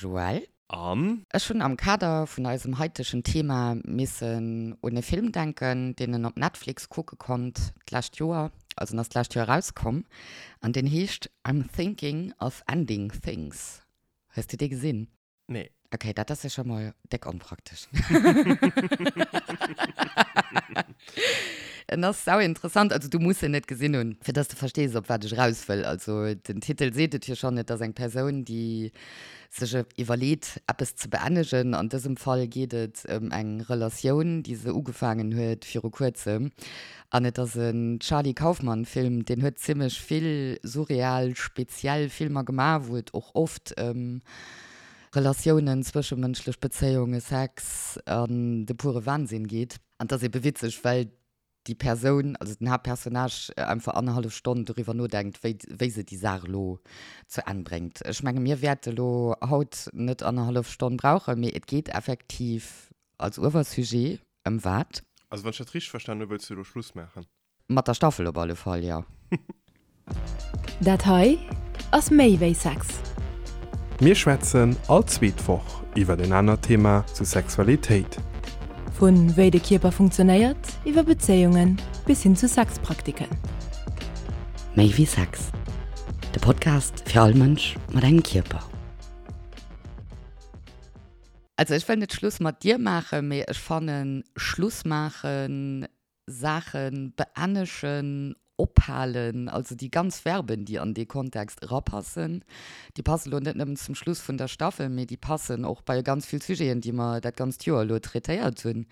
Joël. An? Ech hunn am Kader vun eisem haitegen Thema missen un e Film denken, deen en op Netflix kucke konnt d'lescht Joer, also en ass d'lescht Joer erauskomm, an deen heescht I'm Thinking of Ending Things. Hues de dee gesinn? Nee. Ok, dat ass jo scho mol déck onpraktesch. En ass sau interessant, also du muss en net gesinn hunn, fir dass de verstees, op wat ech eraus wëll. Also den Titel seet et jo schonn, et ass eng Persoun, déi sech iwwerleet, eppes ze beennegen. An dësem Fall geet et ëm eng Relatioun, déi se ugefaangen huet viru kuerzem. An et ass en Charlie Kaufman Film, deen huet zimmlech vill surreal, speziell Filmer gemaach, wou et och oft ëm Relatiounen, zwëschemënschlech Bezéiunge, Sex an de pure Wahnsinn geet. An et ass ebe witzeg, well déi Persoun, also den Haaptpersonnage, einfach annerhallef Stonn doriwwer nodenkt, wéi, wéi se déi Saach elo zu Enn bréngt. Ech menge mir wäerte elo haut net annerhallef Stonn brauchen, mee et geet effektiv als Uewersujet Ëm wat? Also wann ech dat richteg verstanen hu, wëlls du elo Schluss maachen? Mat der Staffel op alle Fall, jo. Dat hei ass méi wéi Sex. Mir schwätzen all zweet Woch iwwert en anert Thema zu Sexualitéit. Vu wéi de Kierper funktionéiert, iwwer Bezéiungen bis hin zu Sexpraktiken. Méi wéi Sex, de Podcast fir all Mënsch mat engem Kierper. Also ech wëll net Schluss mat dir maachen, mee ech fannen Schluss maachen, Saachen beennechen, ophalen, also déi ganz Verben déi an dee Kontext erapassen, déi passen elo net nëmmen zum Schluss vun der Staffel, mee déi passen och bei ganz vill Sujeten déi mer dat ganzt Joer elo traitéiert hunn.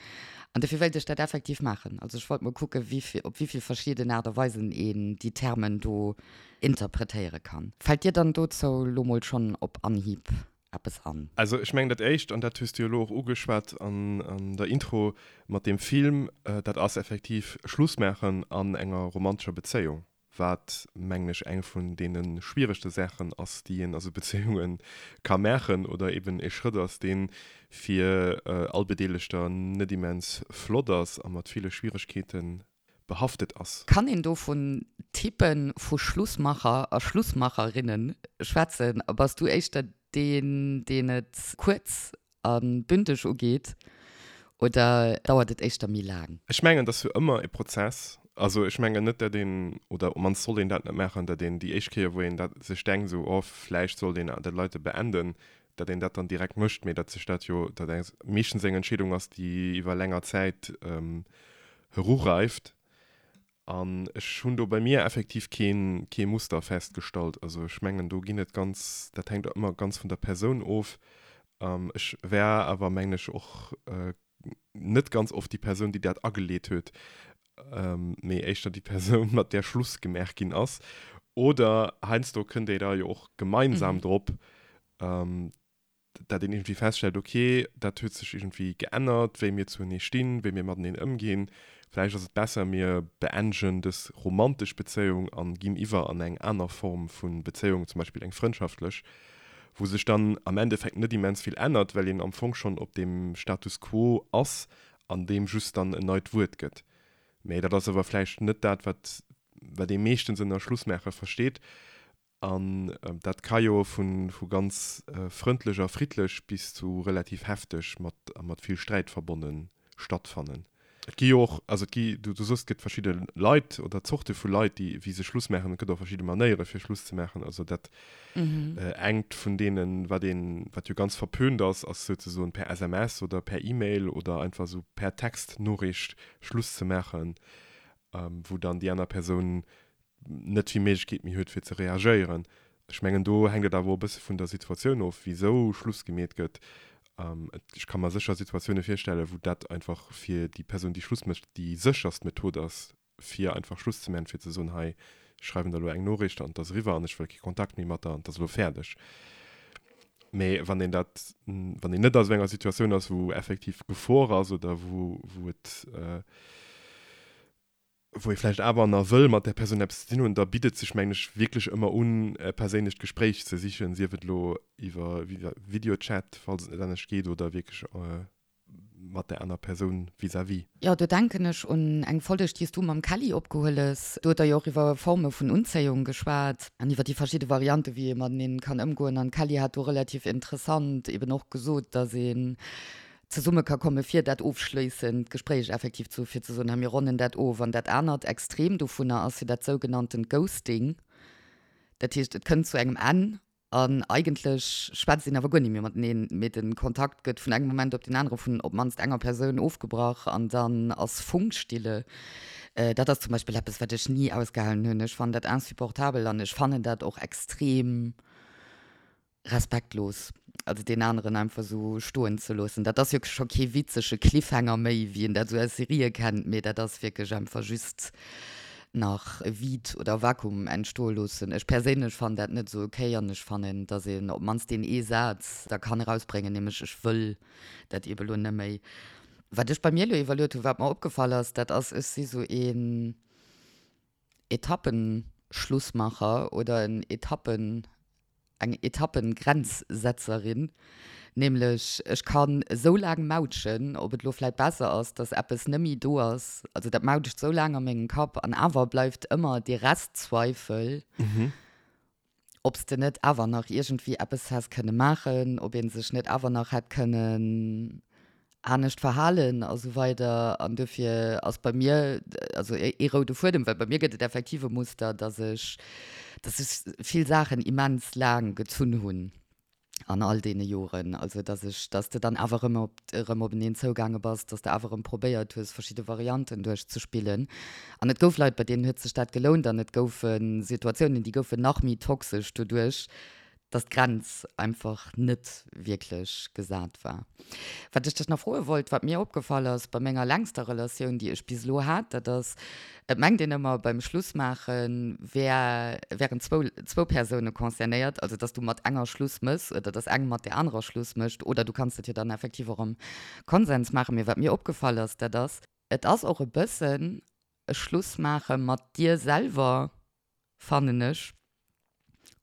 An dofir wéilt ech dat effektiv maachen. Also ech wollt mol kucken, wéi vill, op wéi vill verschidden Aart a Weisen een déi Termen do interpretéiere kann. Fält dir dann dozou elo mol schonn op Anhieb eppes an? Also ech mengen dat Éischt, an dat hues du jo elo och ugeschwat an der Intro mat deem Film, dat ass effektiv Schluss maachen an enger romantescher Bezéiung, wat mengen ech eng vun deene schwieregste Saachen ass, déi een a sou Bezéiunge ka maachen oder eben e Schrëtt ass, dee fir all Bedeelegter net immens flott ass a mat ville Schwieregkeete behaftet ass. Kann een do vun Typen vu Schlussmacher a Schlussmacherinnen schwätzen? A bass du éischter deen, deen et kuerz a bündeg ugeet oder dauert et éischter méi laang? Ech mengen, et ass jo ëmmer e Prozess. Also ech mengen net, datt een, oder op mannst sollt een dat net maachen, datt een déi éischt Kéier, wou een dat sech denkt, esou, oh vläicht sollt een dat Leite beenden, datt een dat dann direkt mécht, mee datt sech dat jo, datt eng meeschtens eng Entscheedung ass, déi iwwer länger Zäit erureift. An ech hunn do bei mir effektiv kee kee Muster festgestallt. Also ech mengen, do ginn et ganz, dat hänkt ëmmer ganz vun der Persoun of. Ech war awer, mengen ech, och net ganz oft déi Persoun, déi dat ageleet huet, mee éischter déi Persoun, mat där Schluss gemaach ginn ass. Oder heiansdo kënnt ee da jo och gemeinsam drop, dat een iergendwéi feststellt, ok, dat huet sech iergendwéi geännert, wéi mir zuenee stinn, wéi mir mateneen ëmginn, vläicht ass et besser, mir beendegen dës romantesch Bezéiung a ginn iwwer an eng aner Form vu Bezéiung, zum Beispill eng frëndschaftlech, wou sech dann am Endeffekt net immens vill ännert, well een am Fong schonn op deem Status quo ass an deem just dann en neit Wuert gëtt. Mä dat ass awer vläicht net dat, wat wat ee meeschtens ënner Schlussmaache versteet. An dat ka jo vu ganz frëndlech a friddlech bis zu relativ hefteg mat a mat vill Sträit verbonne stattfannen. Et gi jo och, also et gi, du sos, et gëtt verschidde Leit oder Zorte vu Leit, déi wéi se Schluss maachen. Et gëtt och verschidde Manéiere fir Schluss ze maachen. Also dat engt vun deenen, wat een, wat jo ganz verpönt ass, ass souzesoen per SMS oder per E-Mail oder einfach esou per Textnoriicht Schluss ze maachen, wou dann déi aner Persoun net vill Méiglechkeet méi huet fir ze reagéieren. Ech mengen do hänkt et awer och e bësse vun der Situatioun of, wisou Schluss gemeet gëtt. Ech ka mer sécher Situatioune virstellen, wou dat einfach fir déi Persoun, déi Schluss mécht, déi sécherst Method ass, fir einfach Schluss ze maachen, fir ze soen, hei, ech schreiwen der elo eng Noriicht an et ass eriwwer an ech wëll kee Kontakt méi mat der an et ass elo fäerdeg. Mee wann een dat, wann een net a sou enger Situatioun ass, wou effektiv Gefor ass oder wou, wou et, wou ee vläicht awer nach wëll mat där Persoun eppes ze dinn hunn, da bitt et sech, mengen ech, wierklech ëmmer un, e perséinlecht Gespréich ze sichen, sief et elo iwwer Videochat, falls et net anescht geet, oder wierklech. mat där aner Persoun vis-à-vis. Jo, do denken ech un eng Folleg, déi s du mam Kelly opgehuel hues. Do huet der jo och iwwer Forme vun Unzéiung geschwat an iwwer déi verschidde Variante wéi ee mateneen kann ëmgoen. An d'Kelly hat do relativ interessant eben och gesot, dass een zesumme ka komme fir dat ofschléissend Gespréich effektiv ze hu fir ze soen, hei mir ronnen dat of. An dat anert Extrem dovunner ass jo dat sougenanntent Ghosting. Dat heescht, et kënnt zu engem Enn An eigentlech schwätzt een awer guer ni méi mateneen, mee de Kontakt gëtt vun engem Moment op deen anere vun op d'mannst enger Persoun ofgebrach an dann ass Funkstille. Dat ass zum Beispill eppes, wat ech ni ausgehalen hunn. Ech fannen dat insupportabel an ech fannen dat och extrem respektlos, also deen aneren einfach esou stoen ze loossen. Dat ass jo scho kee witzege Cliffhanger méi, wéi een dat esou aus Serië kennt, mee dat ass wierklech einfach just nach e Vide oder Vakuum entstoe loossen. Ech perséinlech fannen dat net esou ok an ech fannen, dass een op d'mannst deen ee Saz da kann erausbréngen, nämlech ech wëll dat ebe lo net méi. Wat ech bei mir elo iwwerluet hunn, wat mer opgefall ass, dat ass, ech si sou een Etappenschlussmacher oder en Etappen eng Etappengrenzsetzerin, nämlech ech kann esou laang mautschen, ob et elo vläit besser ass, dass eppes nëmmi do ass, also dat mautscht esou laang a mengem Kapp an awer bleift ëmmer dee Restzweifel, ob s de net awer nach iergendwéi eppes häss kënne maachen, ob ee sech net awer nach hätt kënnen anescht verhalen a sou weider an dofir ass bei mir also ee roude Fuedem, well bei mir gëtt et effektiv e Muster, dass ech dass ech vill Saachen immens laang gezunn hunn an all deene Joren, also dass ech dass de dann awer erëm op erëm openeen zougaange bass, dass de awer erëm probéiert hues verschidde Varianten duerchzespillen an et gouf Leit bei deenen huet sech dat gelount an et goufe Situatiounen déi goufen nach méi toxesch doduerch, dass d'Grenz einfach net wierklech gesat war. Wat ech dech nach froe wollt, wat mir opgefall ass bei menger längster Relatioun, déi ech bis elo hat, dat ass, et mengt een ëmmer beim Schlussmaache wär, wären zwou, zwou Persoune concernéiert, also dass du mat enger Schluss méchs oder dass eng mat där anerer Schluss mécht oder du kanns dat jo dann effektiv och am Konsens maachen. Mee wat mir opgefall ass, dat ass, et ass och e bëssen e Schlussmaache mat dir selwer, fannen ech,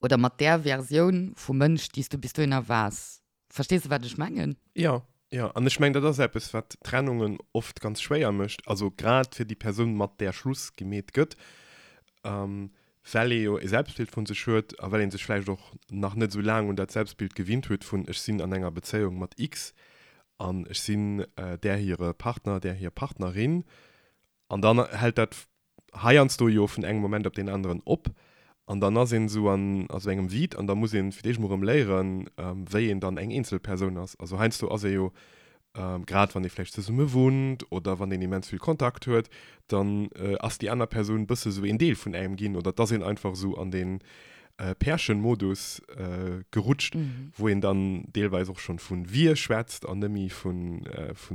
oder mat där Versioun vum Mënsch, déi s du bis dohinner waars. Verstees de, wat ech mengen? Jo, jo. An ech mengen, dat ass eppes, wat Trennungen oft ganz schwéier mécht, also grad fir déi Persoun, mat där Schluss gemeet gëtt, well ee jo e Selbstbild vu sech huet a well ee sech vläicht och nach net esou laang un dat Selbstbild gewinnt huet vun ech sinn an enger Bezéiung mat X an ech sinn där hire Partner, där hir Partnerin. An dann hält dat heiansdo jo vun engem Moment op deen aneren op an dann ass een esou an a sou engem Vide an da muss een fir d'éischt mol erëm léieren, wéi een dann eng eenzel Persoun ass. Also heiansdo ass ee jo, grad wann ee vläicht zesumme wunnt oder wann een immens vill Kontakt huet, dann ass déi aner Persoun bësse sou een Deel vun engem ginn oder et ass een einfach esou an dee Pärchenmodus gerutscht, wou een dann deelweis och schonn vu wir schwätzt an net méi vu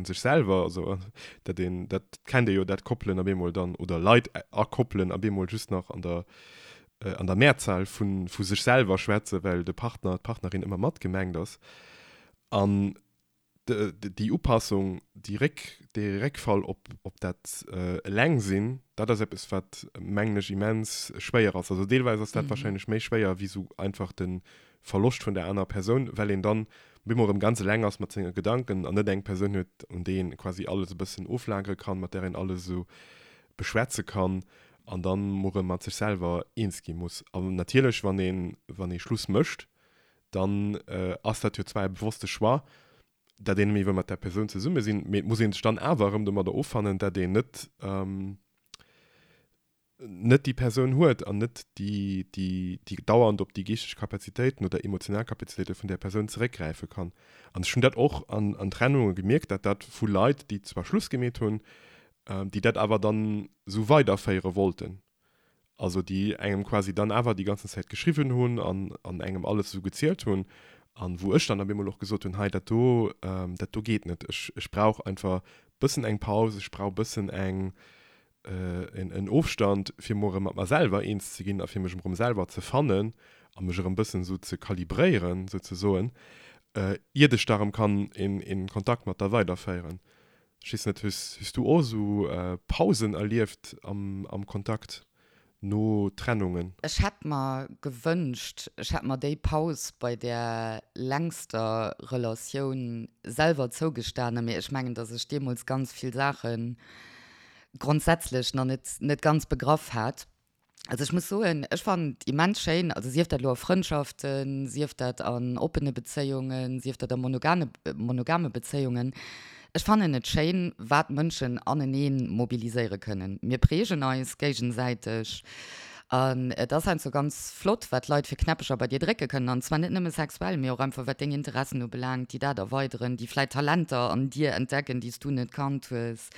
sech selwer. Also dat een, dat kennt ee jo, dat Koppelen op eemol dann, oder Leit a Koppelen op eemol just nach an der an der Mehrzahl vu vu sech selwer schwätzen, well de Partner, d'Partnerin ëmmer mat gemengt ass. An déi Upassung, déi Réck, dee Réckfall op, op dat Elengsinn, dat ass eppes, wat, mengen ech, immens schwéier ass. Also deelweis ass dat wahrscheinlech méi schwéier wéi esou einfach de Verloscht vun der anerer Persoun, well een dann op eemol erëm ganz eleng ass mat senge Gedanken an net eng Persoun huet, un déi een quasi alles e bëssen oflagere kann, mat där een alles esou beschwätze kann an dann mol erëm mat sech selwer eens gi muss. An natierlech, wann een, wann ee Schluss mécht, dann ass dat jo zwar e bewosste Choix, dat een net méi wëll mat där Persoun zesumme sinn, mee et muss ee sech dann awer erëm domadder offannen, dat een net net déi Persoun huet an net déi déi déi dauernd op déi geeschteg Kapazitéiten oder emotional Kapazitéite vun där Persoun zeréckgräife kann. An ech hunn dat och an an Trennunge gemierkt, dat dat vu Leit, déi zwar Schluss gemeet hunn, déi dat awer dann esou weiderféiere wollten. Also déi engem quasi dann awer déi ganzen Zäit geschriwwen hunn an an engem alles esou gezielt hunn an wou ech dann op eemol och gesot hunn, hei dat do, dat do geet net, ech ech brauch einfach bëssen eng Paus, ech brauch bëssen eng en en Ofstand fir mol erëm mat mer selwer eens ze ginn a fir mech erëm selwer ze fannen a mech erëm bëssen esou ze kalibréieren souzesoen, iert ech da erëm kann een een Kontakt mat der weiderféieren. Ech weess net, hues, hues du och esou Pausen erlieft am, am Kontakt? No Trennungen. Ech hätt mer gewënscht, ech hätt mer déi Paus bei där längster Relatioun selwer zougestanen, mee ech mengen, dass ech deemools ganz vill Saache grondsätzlech nach net, net ganz begraff hat. Also ech muss soen, ech fannen et immens schéin, also sief dat elo a Frëndschaften, sief dat an oppene Bezéiungen, sief dat a monogane, monogame Bezéiungen, Ech fannen et schéin, wat Mënschen aneneen mobiliséiere kënnen. Mir prägen eis géigensäiteg an et ass heiansdo ganz flott, wat Leit fir Knäppecher bei dir drécke kënnen. An zwar net nëmme sexuell, mee och einfach wat deng Interessen ubelaangt, déi dat erweideren, déi vläit Talenter an dir entdecken, déi s du net kannt hues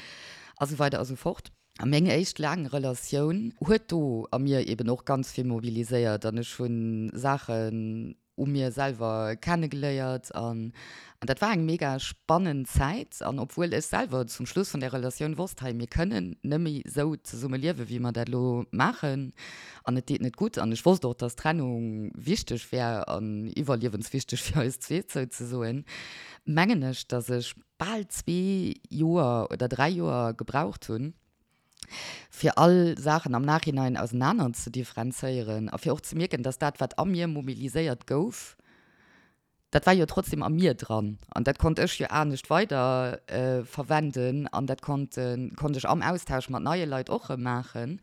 a sou weider a sou fort. A meng éischt laang Relatioun huet do a mir eben och ganz vill mobiliséiert an ech hu Saachen u mir selwer kennegeléiert an an dat war eng mega spannend Zäit an obwuel ech selwer zum Schluss vun där Relatioun wosst, hei mir kënnen nëmme sou zesumme liewe wéi mer dat elo maachen an et deet net gutt an ech wosst och, dass Trennung wichteg wär an iwwerliewenswichteg fir eis zweet souzesoen, mengen ech, dass ech bal zwee Joer oder dräi Joer gebraucht hunn, fir all Saachen am Nachhinein ausenaner ze differenzéieren a fir och ze mierken, dass dat, wat a mir mobiliséiert gouf, dat war jo trotzdem a mir dran an dat konnt ech jo anescht weider verwenden an dat konnt konnt ech am Austausch mat neie Leit och erëm maachen.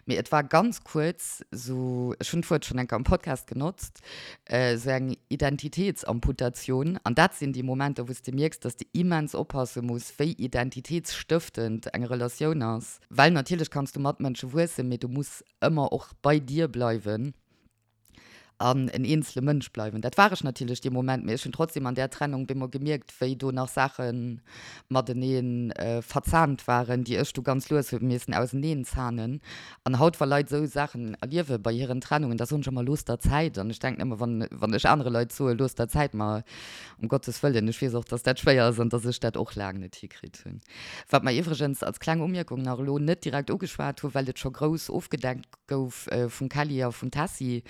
Mee et war ganz kuerz esou, ech hunn d'Wuert schonn eng Kéier am Podcast genotzt, esou eng Identitätsamputatioun. An dat sinn déi Momenter, wou s de mierks, dass de immens oppasse muss, wéi identitätsstëftend eng Relatioun ass. Well natierlech kanns du mat Mënsche wuessen, mee du muss ëmmer och bei dir bleiwen an en eenzele Mënsch bleiwen. Dat war ech natierlech dee Moment, mee ech hunn trotzdem an där Trennung bemol gemierkt, wéi do nach Saache matenee verzahnt waren, déi ech du ganz lues hu missen auseneen zahnen. An haut, wa Leit esou Saachen erliewe bei hiren Trennungen, da soen ech ëmmer, Looss der Zäit. An ech denken ëmmer, wann, wann ech anere Leit soe looss der Zäit, ma um Gottes Wëllen, ech weess och, dass dat schwéier ass an dass ech dat och laang net hikritt hunn. Wat mer iwwregens als kleng Umierkung nach elo net direkt ugeschwat hunn, well et scho grouss ofgedeckt gouf vum Kelly a vum Tessy,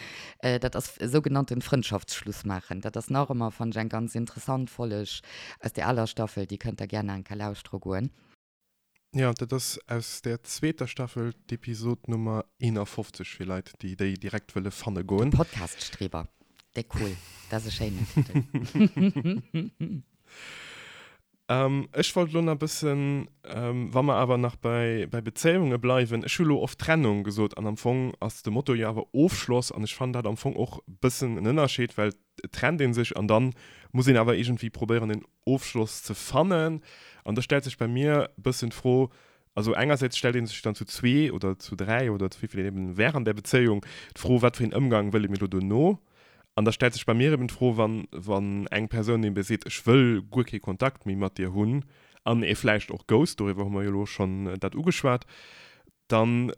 dat ass e sougenannten Frëndschaftsschluss maachen. Dat ass nach ëmmer, fannen ech, eng ganz interessant Folleg aus där aler Staffel, déi kënnt der gär nach eng Kéier lauschtere goen. Jo, dat ass aus der zweeter Staffel, d'Episod Nummer 51 fir Leit, déi déi direkt wëlle fanne goen. De Podcast-Streber, déck cool, dat ass e schéinen Titel. Ech wollt elo nach e bëssen, wa mer awer nach bei Bezéiunge bleiwen, ech hu elo oft Trennung gesot an am Fong ass de Motto jo awer Ofschloss an ech fannen dat am Fong och e bëssen en Ënnerscheed, well et trennt ee sech an dann muss een awer iergendwéi probéieren en Ofschloss ze fannen. An da stellt sech bei mir e bëssen d'Fro, also engersäits stellt ee sech dann zu zwee oder zu dräi oder zu wéi vill een eben wär an där Bezéiung d'Fro, wat fir een Ëmgang wëlle mir elo dono? An da stellt sech bei mir eben d'Fro, wann, wann eng Persoun ebe seet, ech wëll guer kee Kontakt méi mat dir hunn an ee vläicht och ghost, doriwwer hu mer jo elo schonn dat ugeschwat, dann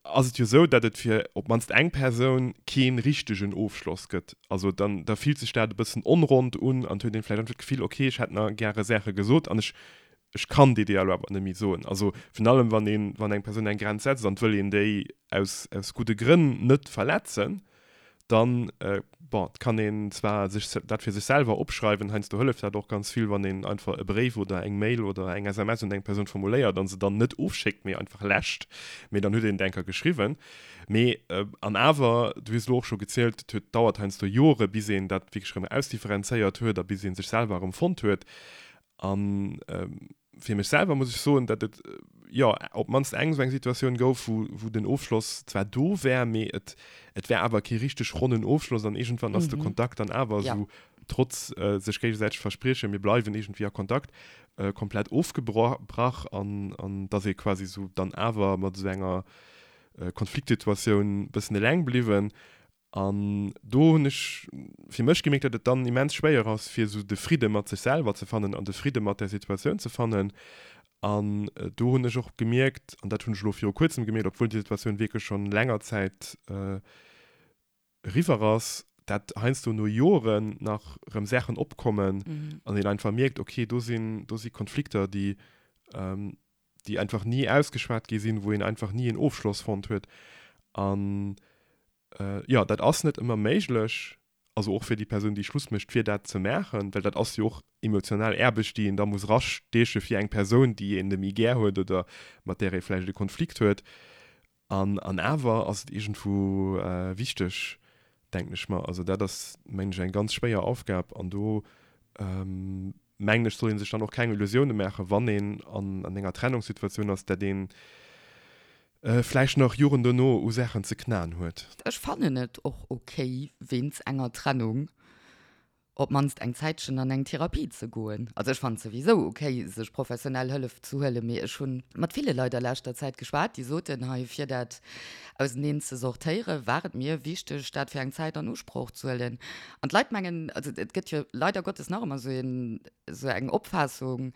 ass et jo esou, datt et fir op d'mannst eng Persoun kee richtegen Ofschloss gëtt. Also dann, da fillt sech dat e bëssen onrond un an et huet een vläicht einfach d'Gefill, okay, ech hätt nach gäre Saache gesot an ech, ech kann déi déi elo awer net méi soen. Also virun allem, wann een, wann eng Persoun eng Grenz setzt an et wëll een déi aus, aus gudde Grënn net verletzen, dann, bon, et kann een zwar sech dat fir sech selwer opschreiwen, heiansdo hëlleft dat och ganz vill, wann een einfach e Bréif oder eng Mail oder eng SMS un eng Persoun formuléiert a se dann net ofschéckt, mee einfach läscht, mee dann huet een et eng Kéier geschriwwen. Mee, an awer, du hues elo och scho gezielt, et huet, dauert heiansdo Jore bis een dat wierklech erëm ausdifferenzéiert huet a bis ee sech selwer erëm fonnt huet. An fir mech selwer muss ech soen, datt et jo op d'mannst eng esou eng Situatioun gouf, wou, wou den Ofschloss zwar do wär, mee et, et wär awer kee richteg ronnen Ofschloss an iergendwann ass de Kontakt dann awer esou, trotz sech géigesäiteg Verspriechen, mir bleiwen iergendwéi a Kontakt, komplett ofgebrach an, an datt ee quasi esou dann awer mat esou enger Konfliktsituatioun bëssen eleng bliwwen. An do hunn ech fir mech gemierkt, datt et dann immens schwéier ass, fir esou de Fridde mat sech selwer ze fannen an de Fridde mat där Situatioun ze fannen. An do hunn ech och gemierkt, an dat hunn ech elo viru kuerzem gemierkt, obwuel déi Situatioun wierklech schonn länger Zäit eriwwer ass, dat heiansdo no Joren nach erëm Saachen opkommen an een einfach mierkt, okay, do sinn, do si Konflikter, déi, déi einfach ni ausgeschwat gi sinn, wou een einfach ni en Ofschloss fonnt huet. An Jo, dat ass net ëmmer méiglech, also och fir déi Persoun, déi Schluss mécht, fir dat ze maachen, well dat ass jo och emotional Aarbecht, déi een da muss erastieche fir eng Persoun, déi een net méi gär huet oder mat där ee vläicht e Konflikt huet. An, an awer ass et iergendwou wichteg, denken ech mer. Also dat ass, mengen ech, eng ganz schwéier Aufgab. An do, mengen ech, soll ee sech dann och keng Illusioune maachen, wann een an, an enger Trennungssituatioun ass, dat ee vläicht nach Joren dono u Saachen ze knaen huet. Ech fannen et och ok, wéinst enger Trennung op d'mannst eng Zäitchen an eng Therapie ze goen. Also ech fannen et souwisou ok, sech professionell Hëllef ze huelen, mee ech hunn mat ville Leit a leschter Zäit geschwat, déi soten, hei fir dat auseneen ze sortéieren, war et mir wichteg, dat fir eng Zäit an Usproch ze huelen. An d'Leit mengen, also et gëtt jo leider Gottes nach ëmmer esou een, esou eng Opfaassung,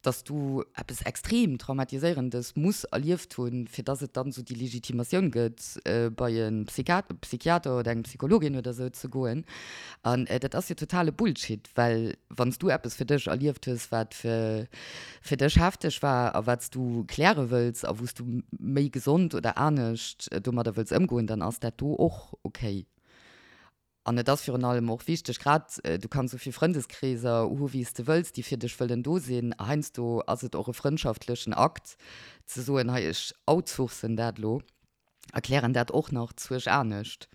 dass du eppes extrem Traumatiséierendes muss erlieft hunn, fir dass et dann esou déi Legitimatioun gëtt, bei e Psychiater oder eng Psychologin oder esou ze goen. An dat ass jo totale Bullshit, well wann s du eppes fir dech erlieft hues, wat fir dech hefteg war a wat s du kläre wëlls a wou s du méi gesond oder anescht domadder wëlls ëmgoen, dann ass dat do och okay. An et ass virun allem och wichteg, grad, du kanns esou vill Frëndeskreeser hu wéi s de wëlls, déi fir dech wëllen do sinn, heiansdo ass et och e frëndschaftlechen Akt ze soen, hei ech outsourcen dat elo, erklären dat och nach zuerch anescht.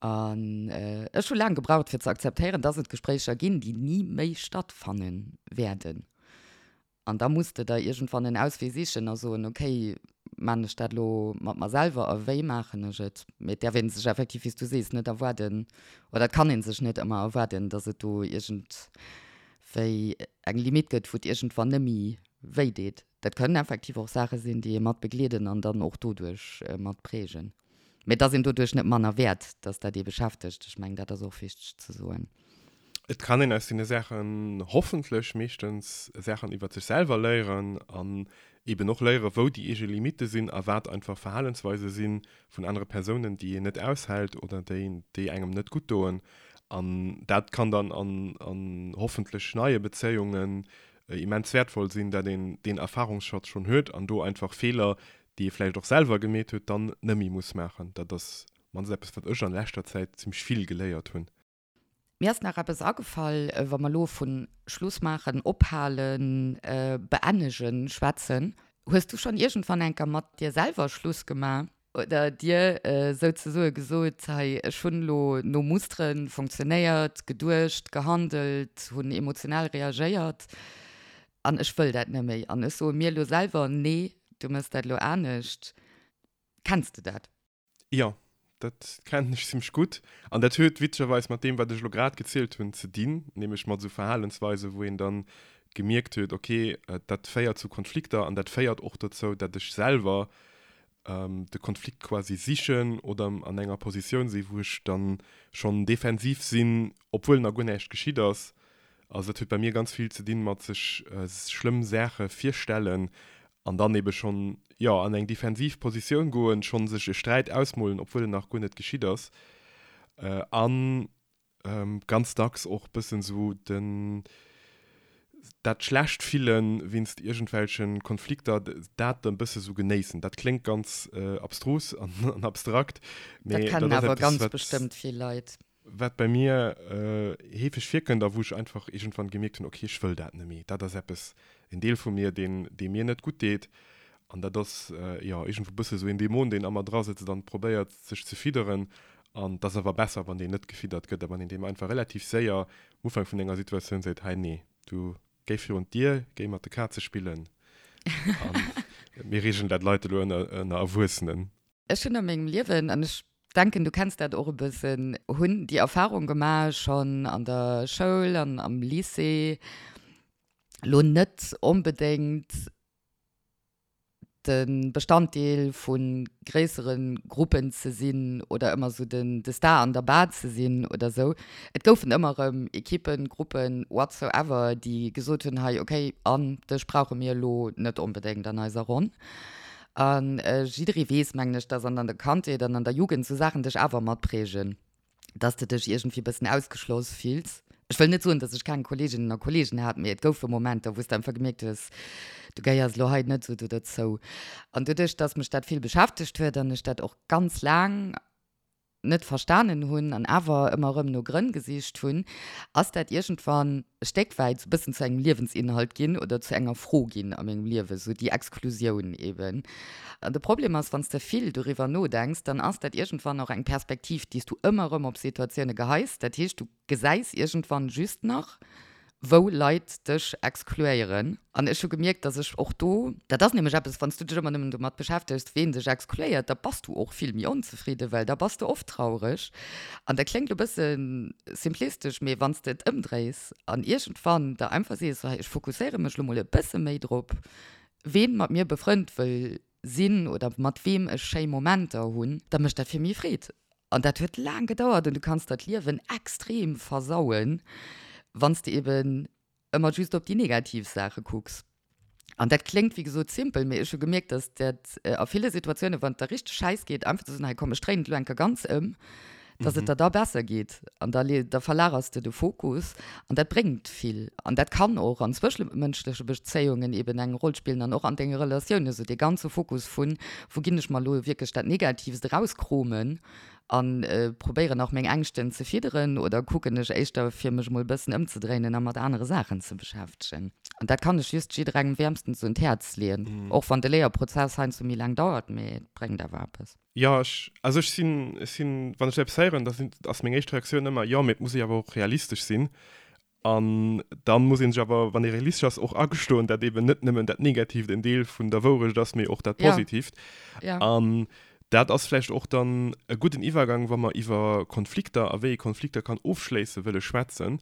An ech hu laang gebraucht fir ze akzeptéieren, dass et Gespréicher ginn, déi ni méi stattfanne wäerden. An da muss de der iergendwann en Auswee sichen a soen, okay, maachen ech dat elo mat mer selwer a wéi maachen ech et? Mee et däerf ee sech effektiv, wéi s du sees, net erwaarden, oder et kann ee sech net ëmmer erwaarden, datt et do iergendwéi eng Limitt gëtt, wou et iergendwann net méi wéi deet. Dat kënnen effektiv och Saache sinn, déi ee mat begleeden an dann och doduerch mat prägen. Mee et ass een doduerch net manner wäert, datt dat ee beschäftegt. Ech mengen, dat ass och wichteg ze soen. Et kann een aus deene Saachen hoffentlech meeschtens Saachen iwwert sech selwer léieren an eben och léieren, wou déi eege Limitte sinn a wat einfach Verhalensweise si vun anere Persounen, déi een net aushält oder déi, déi engem net gutt doen. An dat kann dann an, an hoffentlech neie Bezéiungen immens wäertvoll sinn, dat een deen Erfahrungsschatz schonn huet an do einfach Feeler, déi ee vläicht och selwer gemeet huet, dann nëmmi muss maachen. Dat ass mannst eppes, wat ech an leschter Zäit zimmlech vill geléiert hunn. Mir ass nach eppes agefall, wa mer elo vu Schluss maachen, ophalen, beennegen schwätzen. Hues du schonn iergendwann enker mat dir selwer Schluss gemaach oder dir souzesoe gesot, hei ech hunn elo no Mustere funktionéiert, geduecht, gehandelt, hunn emotional reagéiert an ech wëll dat net méi an ech soe mir elo selwer, nee, du méchs dat elo anescht. Kenns de dat? Jo, dat kennen ech zimmlech gutt. An dat huet witzegerweis mat deem, wat ech elo grad gezielt hunn, ze dinn, nämlech mat esou Verhalensweisen, wou een dann gemierkt huet, okay, dat féiert zu Konflikter an dat féiert och dozou, dat ech selwer de Konflikt quasi sichen oder an enger Positioun sinn, wou ech dann schonn defensiv sinn, obwuel nach guer näischt geschitt ass. Also dat huet bei mir ganz vill ze dinn mat sech schlëmm Saache virstellen an dann ebe schonn, jo, an eng defensiv Positioun goen, schonn sech e Sträit ausmolen, obwuel en nach guer net geschitt ass. An ganz dacks och bëssen esou den, dat schlecht Fillen wéinst iergendwelche Konflikter, dat dann bësse sou genéissen. Dat kléngt ganz abstrus an abstrakt, mee dat ass eppes, wat. Dat kennen awer ganz bestëmmt vill Leit. Wat bei mir heefeg virkënnt a wou ech einfach iergendwann gemierkt hunn, okay, ech wëll dat net méi. Dat ass eppes, en Deel vu mir, deen, dee mir net gutt deet. An dat ass, jo, iergendwou e bësse sou een Dämon, deen a mer drasëtzt an probéiert, sech ze fidderen. An et ass awer besser, wann deen net gefiddert gëtt a wann een deem einfach relativ séier um Ufank vun enger Situatioun seet, hei, nee, du géi virun d'Dier, géi mat de Kaze spillen a mir reegelen dat Leit elo ënner, ënner Erwuessenen. Ech hunn a mengem Liewen, an ech denken, du kenns dat och e bëssen, hunn déi Erfahrung gemaach, schonn an der Schoul an am Lycée, lo net onbedéngt de Bestanddeel vu gréissere Gruppen ze sinn oder ëmmer esou den de Star an der Bar ze sinn oder esou. Et goufen ëmmer erëm Ekippen, Gruppen, whatsoever, déi gesot hunn, hei okay, an dech brauche mir elo net onbedéngt an eiser Ronn. A jidderee weess, mengen ech, dass an der Kandheet an an der Jugend sou Saachen dech awer matprägen, dass de dech iergendwéi e bëssen ausgeschloss fills. Ech wëll net soen, dass ech keng Kolleeginnen a Kolleegen hat, mee et goufe Momenter, wou s de einfach gemierkt hues, du gehéiers elo hei net esou do dozou. An doduerch, dass mech dat vill beschäftegt huet an ech dat och ganz laang. net verstanen hunn an awer ëmmer erëm no Grënn gesicht hunn, ass dat iergendwann e Stéck wäit sou e bëssen zu engem Liewensinhalt ginn oder zu enger Fro ginn a mengem Liewen, sou déi Exklusioun eben. An de Problem ass, wann s de vill doriwwer nodenks, dann ass dat iergendwann och eng Perspektiv, déi s du ëmmer erëm op Situatioune geheis. Dat heescht, du gesäis iergendwann just nach, wou Leit dech exkluéieren. An ech hu gemierkt, dass ech och do, dat ass nämlech eppes, wann s du dech ëmmer nëmmen domat beschäftegs, ween dech exkluéiert, da bass du och vill méi onzefridden, well da bass de oft traureg. An dat kléngt elo e bësse simplistesch, mee wann s de et ëmdréis an iergendwann der einfach sees, sou hei, ech fokusséiere mech elo mol e bësse méi drop, ween mat mir befrënnt wëll sinn oder mat weem ech schéi Momenter hunn, da mécht dat vill méi Freed. An dat huet laang gedauert an du kanns der d'Liewen extrem versauen, wann s de eben ëmmer just op déi negativ Saache kucks. An dat kléngt wéi gesot simpel, mee ech hu gemierkt, dass dat a ville Situatiounen, wann et der richteg schäiss geet, einfach ze soen, hei komm ech dréinen et elo eng Kéier ganz ëm, dass et der da besser geet. An da da verlagers de de Fokus an dat bréngt vill. An dat kann och an zwëschemënschleche Bezéiungen eben eng Roll spillen an och an denge Relatiounen, esou dee ganze Fokus vun, wou ginn ech mer elo wierklech dat Negatiivst erauskromen a probéieren nach meng Ängschten ze fidderen oder kucken ech éischter fir mech emol e bëssen ëmzedréinen a mat anere Saachen ze beschäftegen. An dat kann ech just jidderengem wäermstens un d'Häerz leeën, och wann de Léierprozess heiansdo méi laang dauert, mee et bréngt awer eppes. Jo, ech, also ech sinn, ech sinn, wann ech eppes héieren, da sinn, ass meng éischt Reaktioun ëmmer, jo, mee et muss ee awer och realistesch sinn. An da muss ee sech awer, wann ee realistesch ass, och agestoen, dat eben net nëmmen dat Negatiivt en Deel vun der Wourecht ass, mee och dat Positiivt. An dat ass vläicht och dann e gudden Iwwergang, wa mer iwwer Konflikter a wéi ee Konflikter kann ofschléisse wëlle schwätzen,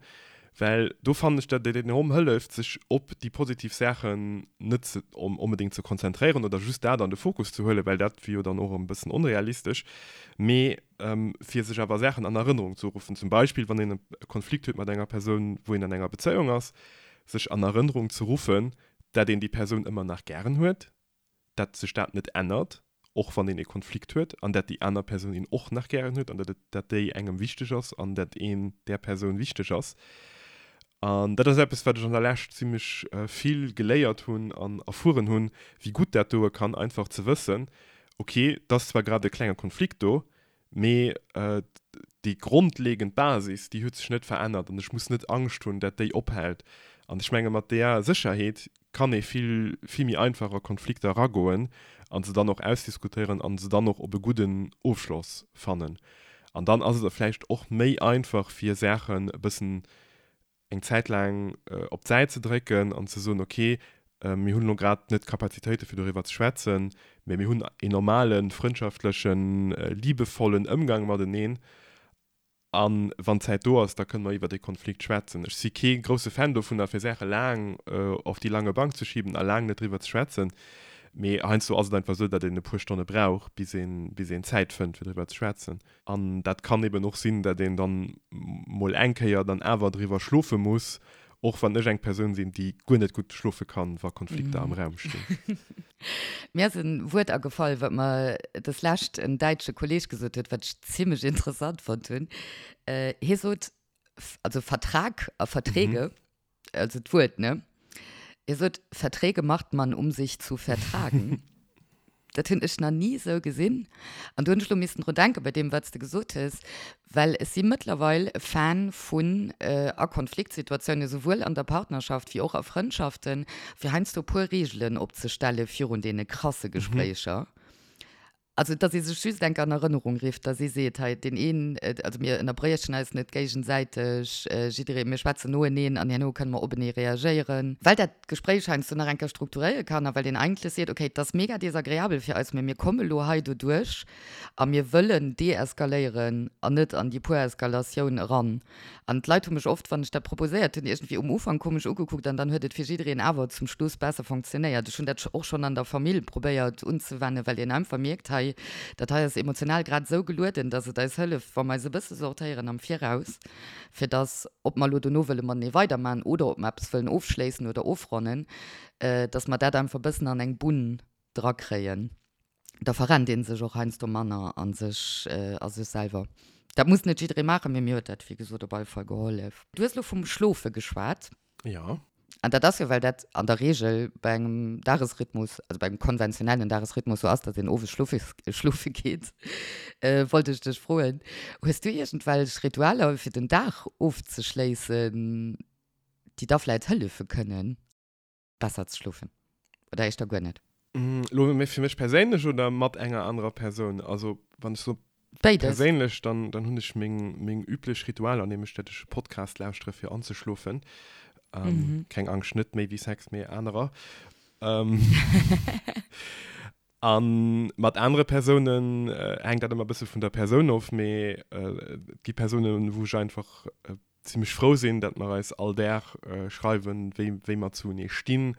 Well do fannen ech, datt et enorm hëlleft, sech op déi positiv Saachen net ze onbedéngt ze konzentréieren oder just dat an de Fokus ze huelen, well dat wier jo dann och e bëssen onrealistesch, mee fir sech awer Saachen an Erënnerung ze ruffen. Zum Beispill, wann een e Konflikt huet mat enger Persoun, wou een an enger Bezéiung ass, sech an Erënnerung ze ruffen, dat een déi Persoun ëmmer nach gären huet, dat sech dat net ännert, och wann een e Konflikt huet, an dat déi aner Persoun een och nach gären huet an dat et, dat déi engem wichteg ass an dat een där Persoun wichteg ass. An dat ass eppes, wat ech an der Lescht zimlech vill geléiert hunn an erfueren hunn, wéi gutt dat doe kann, einfach ze wëssen, ok, et ass zwar grad e klenge Konflikt do, Mee déi grondlegend Basis, déi huet sech net verännert an ech muss net Angscht hunn, dat déi ophält. An ech menge mat där Sécherheet kann ee vill, vill méi einfach a Konflikter eragoen a se dann och ausdiskutéieren a se dann och op e gudden Ofschloss fannen. An dann ass et vläicht och méi einfach fir Saachen e bëssen eng Zäit laang op d'Säit ze drécken an ze soen, ok, mir hunn elo grad net d'Kapazitéite fir doriwwer ze schwätzen, mä mir hunn een normalen, frëndschaftlechen, liebevollen Ëmgang mateneen a wann d'Zäit do ass, da kënne mer iwwer dee Konflikt schwätzen. Ech si kee grousse Fan dovunner, fir Saache laang auf die lange Bank ze schieben a laang net driwwer ze schwätzen, mee heiansdo ass et einfach esou, datt een e puer Stonne brauch, bis een, bis een Zäit fënnt, fir driwwer ze schwätzen. An dat kann eben och sinn, dat een dann mol eng Kéier dann awer driwwer schlofe muss, och wann ech eng Persoun sinn, déi guer net gutt schlofe kann, wa Konflikter am Raum stinn. Mir ass e Wuert agefall, wat mer des Lescht en däitsche Kolleeg gesot huet, wat ech zimmlech interessant fonnt hunn. Hie sot, also Vertrag a Verträge, also d'Wuert, ne? Hie sot, Verträge macht man, um sich zu vertragen. Dat hunn ech nach ni esou gesinn. An do hunn ech elo missen drun denken, bei deem, wat s de gesot hues, well ech si mëttlerweil e Fan vun, a Konfliktsituatiounen, souwuel an der Partnerschaft wéi och a Frëndschaften, fir heiansdo e puer Reegelen opzestelle virun deene krasse Gespréicher. Also, dass ee sech just enk an Erënnerung rifft, dass ee seet, hei, deen een, also mir ënnerbriechen eis net géigesäiteg, jidderee, mir schwätzen noeneen an herno kënne mer openee reagéieren. Well dat d'Gespréich heiansdo nach eng Kéier strukturéiere kann a well een eigentlech seet, okay, et ass mega desagreabel fir eis, mä mir komme lo hei doduerch a mir wëllen deeskaléieren an net an déi puer Eskalatioun eran. An d'Leit hu mech oft, wann ech dat proposéiert hunn, iergendwéi um Ufank komesch ugekuckt an dann huet et fir jiddereen awer zum Schluss besser fonctionnéiert. Ech hunn dat och schonn an der Famill probéiert unzewennen, well een einfach mierkt, hei, dat hei ass emotional grad esou gelueden, dass et eis hëlleft, wa mer eis e bësse sortéieren am Viraus, fir dass, ob mer elo dono wëlle matenee weidermachen oder ob mer eppes wëllen ofschléissen oder ofronnen, dass mer dat einfach e bëssen an eng Bunn drakréien. Da verrennt ee sech och heiansdo manner a sech, a sech selwer. Dat muss net jidderee maachen, mee mir huet dat, wéi gesot, op alle Fall gehollef. Du hues elo vum Schlofe geschwat. Jo. An dat ass jo, well dat an der Reegel bei engem Dagesrhythmus, also bei engem konventionellen Dagesrhythmus sou ass, datt een owes schlofe schlofe geet. Wollt ech dech froen, hues du iergendwelch Ritualer fir den Dag ofzeschléissen, déi da vläit hëllefe kënnen, besser ze schlofen? Oder éischter guer net? Elo méi fir mech perséinlech oder mat enger anerer Persoun? Also wann ech so Béides. perséinlech, dann, dann hunn ech meng, meng üblech Ritualer, nämlech dat ech e Podcast lauschtere fir anzeschlofen. Ähm, Keng Angscht, net méi wéi Sex, mee anerer. Ähm, a mat anere Persounen hänkt dat ëmmer e bësse vun der Persoun of, mee et gi Persounen, wou ech einfach zimmlech frou sinn, dat mer eis all Dag schreiwen, wéi, wéi mer zuenee stinn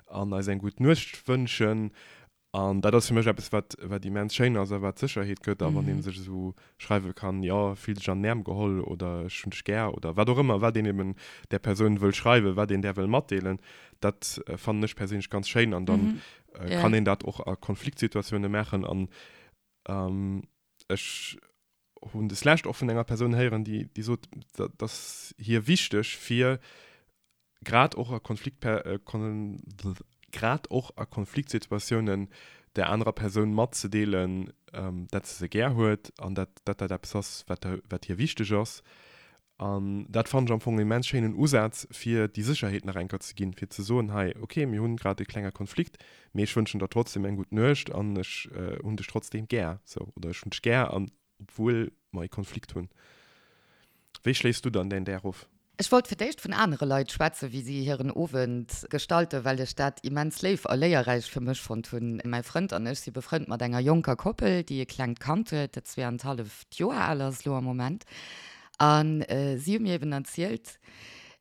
an eis eng gutt Nuecht wënschen. An dat ass fir mech eppes, wat, wat immens schéin ass a wat Sécherheet gëtt. A wann ee sech esou schreiwe kann, jo, fill dech an den Äerm geholl oder ech hunn dech gär oder wat och ëmmer, wat een eben där Persoun wëll schreiwen, wat een där wëll matdeelen, dat fannen ech perséinlech ganz schéin. An dann kann een dat och a Konfliktsituatioune maachen. An ech hunn des lescht och vun enger Persoun héieren, déi, déi sot, dat ass hir wichteg, fir grad och a Konflikt, grad och a Konfliktsituatiounen där anerer Persoun matzedeelen, dat se se gär huet an dat dat dat eppes ass, wat wat hir wichteg ass. An dat fannen ech am Fong en immens schéinen Usaz, fir déi Sécherheet nach eng Kéier ze ginn, fir ze soen, hei, okay, mir hunn grad e klenge Konflikt, mee ech wënschen der trotzdem eng gutt Nuecht an ech hunn dech trotzdem gär, sou, oder ech hunn dech gär, an obwuel mer e Konflikt hunn. Wéi schléiss du dann däin Dag of? Ech wollt fir d'éischt vun anere Leit schwätzen, wéi si hiren Owend gestalten, well ech dat immens léif a léierräich fir mech fonnt hunn. Mäi Frënd an ech si befrënnt mat enger jonker Koppel, déi e klengt Kand huet, dat zweeanenhalleft Joer al ass elo am Moment. A si hu mir eben erzielt,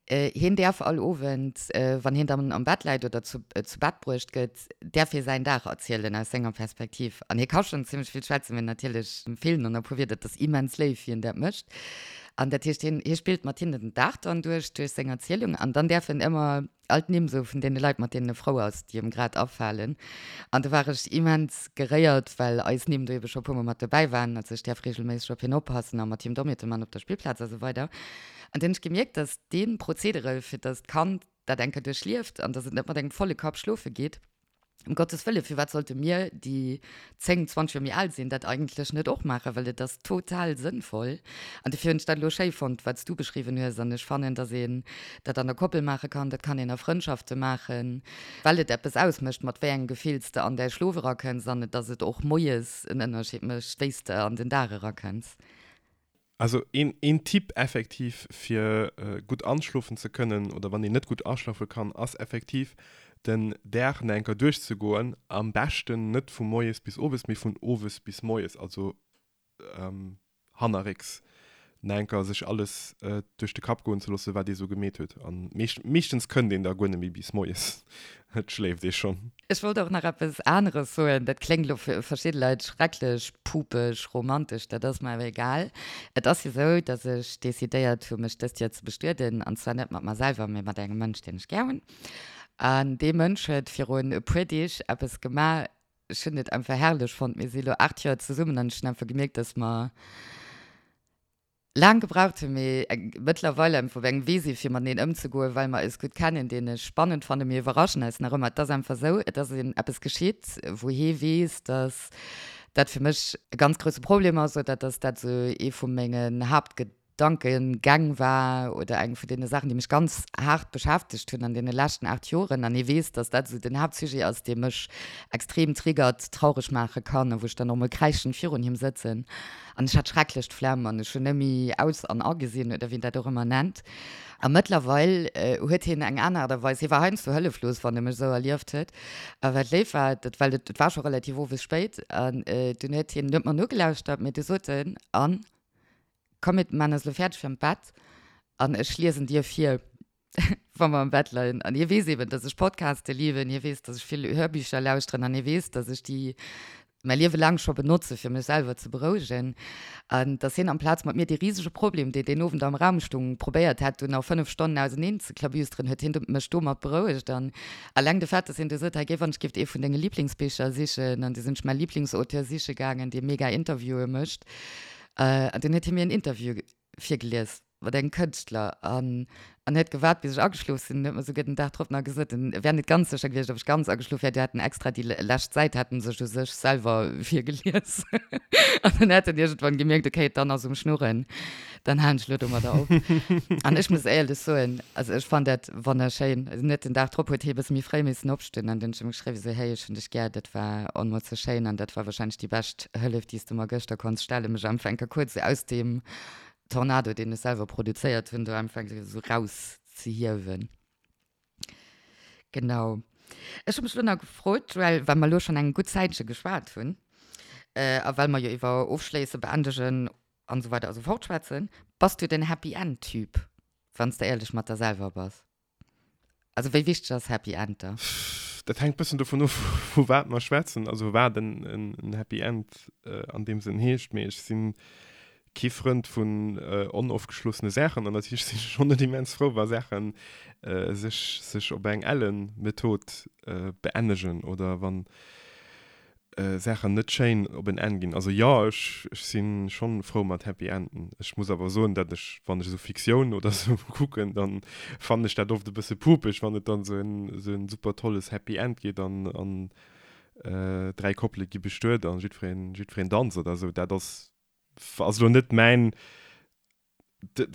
hien däerf all Owend, wann hien dann am Bett läit oder zu Bett bruecht gëtt, däerf hie säin Dag erzielen aus senger Perspektiv. An hie ka schonn zimmlech vill schwätzen, mee natierlech feelen en e puer Wierder. Et ass immens léif, wéi en dat mécht. An dat heescht, hien, hie spillt mat hinnen den Dag dann duerch, duerch seng Erzielung. An dann däerf en ëmmer all d'Nimm soe vun deene Leit, mat deenen e frou ass, déi em grad afalen. An do war ech immens geréiert, well eis Nimm do ebe scho e puermol mat dobäi waren. Also ech däerf reegelméisseg op hien oppassen a mat him Dommheete man op der Spillplaz a sou weider. An dunn hunn ech gemierkt, dass dee Prozedere, fir dass d'Kand dat eng Kéier duerchlieft an dass et net mat engem volle Kapp schlofe geet, Ëm Gottes Wëllen, firwat sollte mir, déi 10, 20 Joer méi al sinn, dat eigentlech net och maachen? Well et ass total sënnvoll. An dofir hunn ech dat elo schéi fonnt, wat s du beschriwwen hues. An ech fannen, dass een dat an der Koppel maache kann, dat kann een a Frëndschafte maachen, well et eppes ausmécht, mat wéi engem Gefill s de an däi Schlof erakënns an dass et och moies en Ënnerscheed mécht, wéi s de an den Dag erakënns. Also een, een Tipp effektiv fir gutt anschlofen ze kënnen oder wann een net gutt aschlafe kann, ass effektiv den Dag nach eng Kéier duerchzegoen. Am beschten net vu moies bis owes, mee vun owes bis moies, also hannerrécks nach eng Kéier sech alles duerch de Kapp goen ze loossen, wat ee sou gemeet huet. An meeschtens kënnt een da guer net méi bis moies, et schléift ee schonn. Ech wollt och nach eppes aneres soen, dat kléngt elo fir verschidde Leit schrecklech pupeg romantesch, dat ass mer awer egal. Et ass jo sou, datt ech decidéiert hu mech dëst Joer ze bestueden, an zwar net mat mer selwer, mee mat engem Mënsch, deen ech gär hunn. An dee Mënsch huet virun e puer Deeg eppes gemaach, ech hunn et einfach herrlech fonnt. Mir si elo 8 Joer zesummen an ech hunn einfach gemierkt, datt mer laang gebraucht hunn, mee mëttlerweil einfach op engem Wee si fir mateneen ëmzegoen, well mer eis gutt kennen, deen ech spannend fannen. Mir iwwerraschen eis nach ëmmer. Et ass einfach esou, et ass een eppes geschitt, wou hee weess, dass dat fir mech e ganz grousse Problem ass oder dass dat esou ee vu mengen Haaptgedankegäng war oder eng vun deene Saachen, déi mech ganz haart beschäftegt hunn an deene leschten 8 Joren. An hie weess, dass dat esou den Haaptsujet ass, dee mech extrem triggert, traureg maache kann a wou ech dann och mol kräischend virun him sëtzen. An ech hat schrecklech d'Flemm an ech hunn net méi aus an agesinn oder wéi een dat och ëmmer nennt. A mëttlerweil huet hien eng aner Aart a Weis, hie war heiansdo hëlleflos, wann e mech esou erlieft huet. A wat léif war, dat well et war scho relativ owes spéit an dunn huet hien net mer nogelauschtert, mee du sot en, Anne, komm mir maan eis elo fäerdeg fir an d'Bett an ech liesen dir vir. wa mer am Bett leien. An hie weess eben, dass ech Podcaste liwen, hie weess, dass ech vill Hörbücher lauschteren an hie weess, dass ech déi mäi Liewe laang scho benotze fir mech selwer ze berouegen. An dass hien amplaz mat mir dee risege Problem, deen deen Owend am Raum stung, probéiert hätt, dunn nach 5 Stonnen auseneen ze klabüsteren, huet hien mech domat berouegt. An alleng de Fait, dass hien du sot, hei géif an ech géif ee vun denge Liblingsbicher sichen, an du sinn ech mäi Liblingsauteur siche gaangen, dee mega Interviewe mécht, an dunn huet hie mir en Interview virgelies. Mat engem Kënschtler an. An huet gewaart, bis ech ageschlof sinn. En huet mer souguer den Dag drop nach gesot, en wär net ganz sécher gewiescht, ob ech ganz ageschlof wär. Du hätt en extra déi lescht Säit hätt en sech u sech selwer virgelies. An dann hätt en iergendwann gemierkt, okay, d'Anne ass um Schnurren, dann halen ech elo domadder op. An ech muss éierlech soen, also ech fannt dat wonnerschéin. Also net den Dag drop huet hie e bësse méi fréi missen opstoen an dann hunn ech him geschriwwen, esou, hey, ech hunn dech gär, dat war onmools sou schéin an dat war wahrscheinlech déi bescht Hëllef, déi s de mer gëschter konns stellen, mech einfach eng Kéier kuerz esou aus deem Tornado, deen ech selwer produzéiert hunn, do einfach esou raus ze hiewen. Genau. Ech hu mech elo nach gefrot, Joël, well mer elo schonn eng gutt Zäitche geschwat hunn, a well mer jo iwwer Ofschléissen, Beendegen an esou weider a sou fort schwätzen, Bass du den Happy End Typ, wann s de éierlech mat der selwer bass? Also wéi wichteg ass Happy End da? Dat hänkt bëssen dovun of, vu wat mer schwätzen, also wat en Happy End an deem Sënn heescht. Mee ech si kee Frënd vun onofgeschlossene Saachen an natierlech sinn ech schonn net immens frou, wa Saache sech sech op eng ellen Method beennegen oder wann Saachen net schéin op en Enn ginn. Also jo, ech si schonn frou mat Happy Enden. Ech muss awer soen, dat ech, wann ech esou Fiktioun oder esou kucken, dann fannen ech dat oft e bësse pupeg, wann et dann esou en esou en super tolles Happy End geet an an 3 Koppele gi bestuet an jiddwereen jiddwereen danzt oder esou. Dat ass ass elo net mäin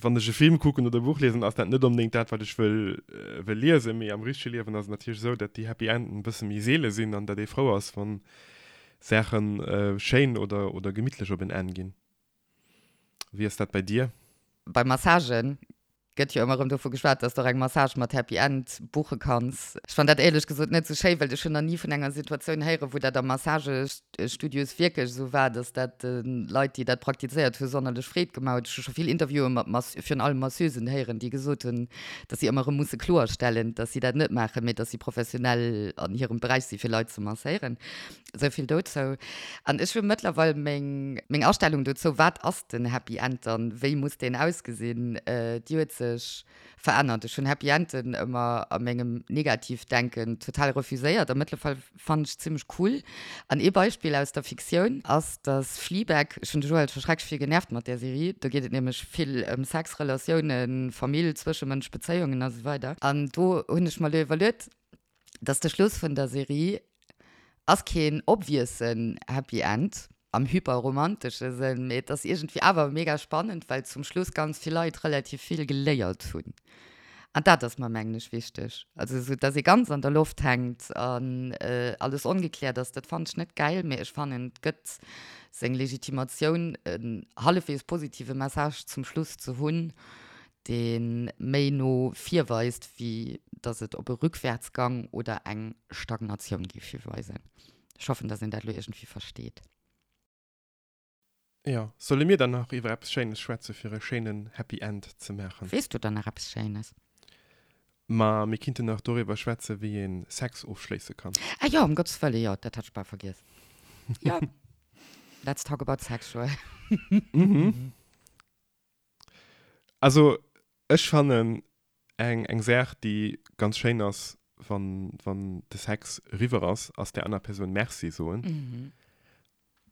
wann ech e Film kucken oder e Buch liesen, ass dat net onbedéngt dat, wat ech wëll, wëll liesen. Mee am richtege Liewen ass et natierlech esou, datt déi Happy Enden e bësse méi seele sinn an datt ee frou ass, wa Saache schéin oder, oder gemittlech op en Enn ginn. Wéi ass dat bei dir? Bei Massagen gëtt jo ëmmer erëm dovu geschwat, dass de och eng Massage mat Happy End buche kanns. Ech fannen dat éierlech gesot net esou schéi, well ech hunn nach ni vun enger Situatioun héieren, wou dat a Massagestudios wierklech esou war, dass dat de Leit, déi dat praktizéiert hu sonnerlech Freed gemaach huet. Ech hu scho vill Interviewen mat Mas virun allem Masseusen héieren, déi gesot hunn, dass si ëmmer erëm musse kloerstellen, dass si dat net maachen, mee dass si professionell an hirem Beräich si fir Leit ze masséieren. Esou vill dozou. An ech hu mëttlerweil meng, meng Astellung dozou, wat ass den Happy End dann, wéi muss deen ausgesinn, déi huet sech verännert. Ech hunn Happy Enden ëmmer a mengem Negativdenken total refuséiert a mëttlerweil fannen ech zimmlech cool. An ee Beispill aus der Fiktioun ass, dass Fleabag, ech hunn de Joël scho schrecklech vill genervt mat där Serie, do geet et nämlech vill ëm Sex, Relatiounen, Famill, Zwëschemënsch, Bezéiungen a sou weider. An do hunn ech mer elo iwwerluet, dass de Schluss vun der Serie ass keen obviousen Happy End am hyperromantesche Sënn, mee et ass iergendwéi awer mega spannend, well zum Schluss ganz vill Leit relativ vill geléiert hunn. An dat ass mer, mengen ech, wichteg. Also esou, dass ee ganz an der Loft hänkt an alles ongekläert ass, dat fannen ech net gäil, mee ech fannen, et gëtt seng Legitimatioun, en hallefweegs positive Message zum Schluss ze hunn, dee méi no vir weist, wéi datt et op e Rückwärtsgang oder eng Stagnatioun géif hiweisen. Ech hoffen, datt een dat elo iergendwéi versteet. Jo, solle mir dann nach iwwer eppes Schéines schwätze fir e schéinen Happy End ze maachen? Weess du dann nach eppes Schéines? Ma mir kinnten nach doriwwer schwätze wéi ee Sex ofschléisse kann. Ah jo, ëm Gottes Wëlle, jo, dat hat ech bal vergiess. Jo, let's talk about sex, Joël. Mhm. Also ech fannen eng eng Saach déi ganz schéin ass wann wann de Sex eriwwer ass, ass där aner Persoun Merci soen.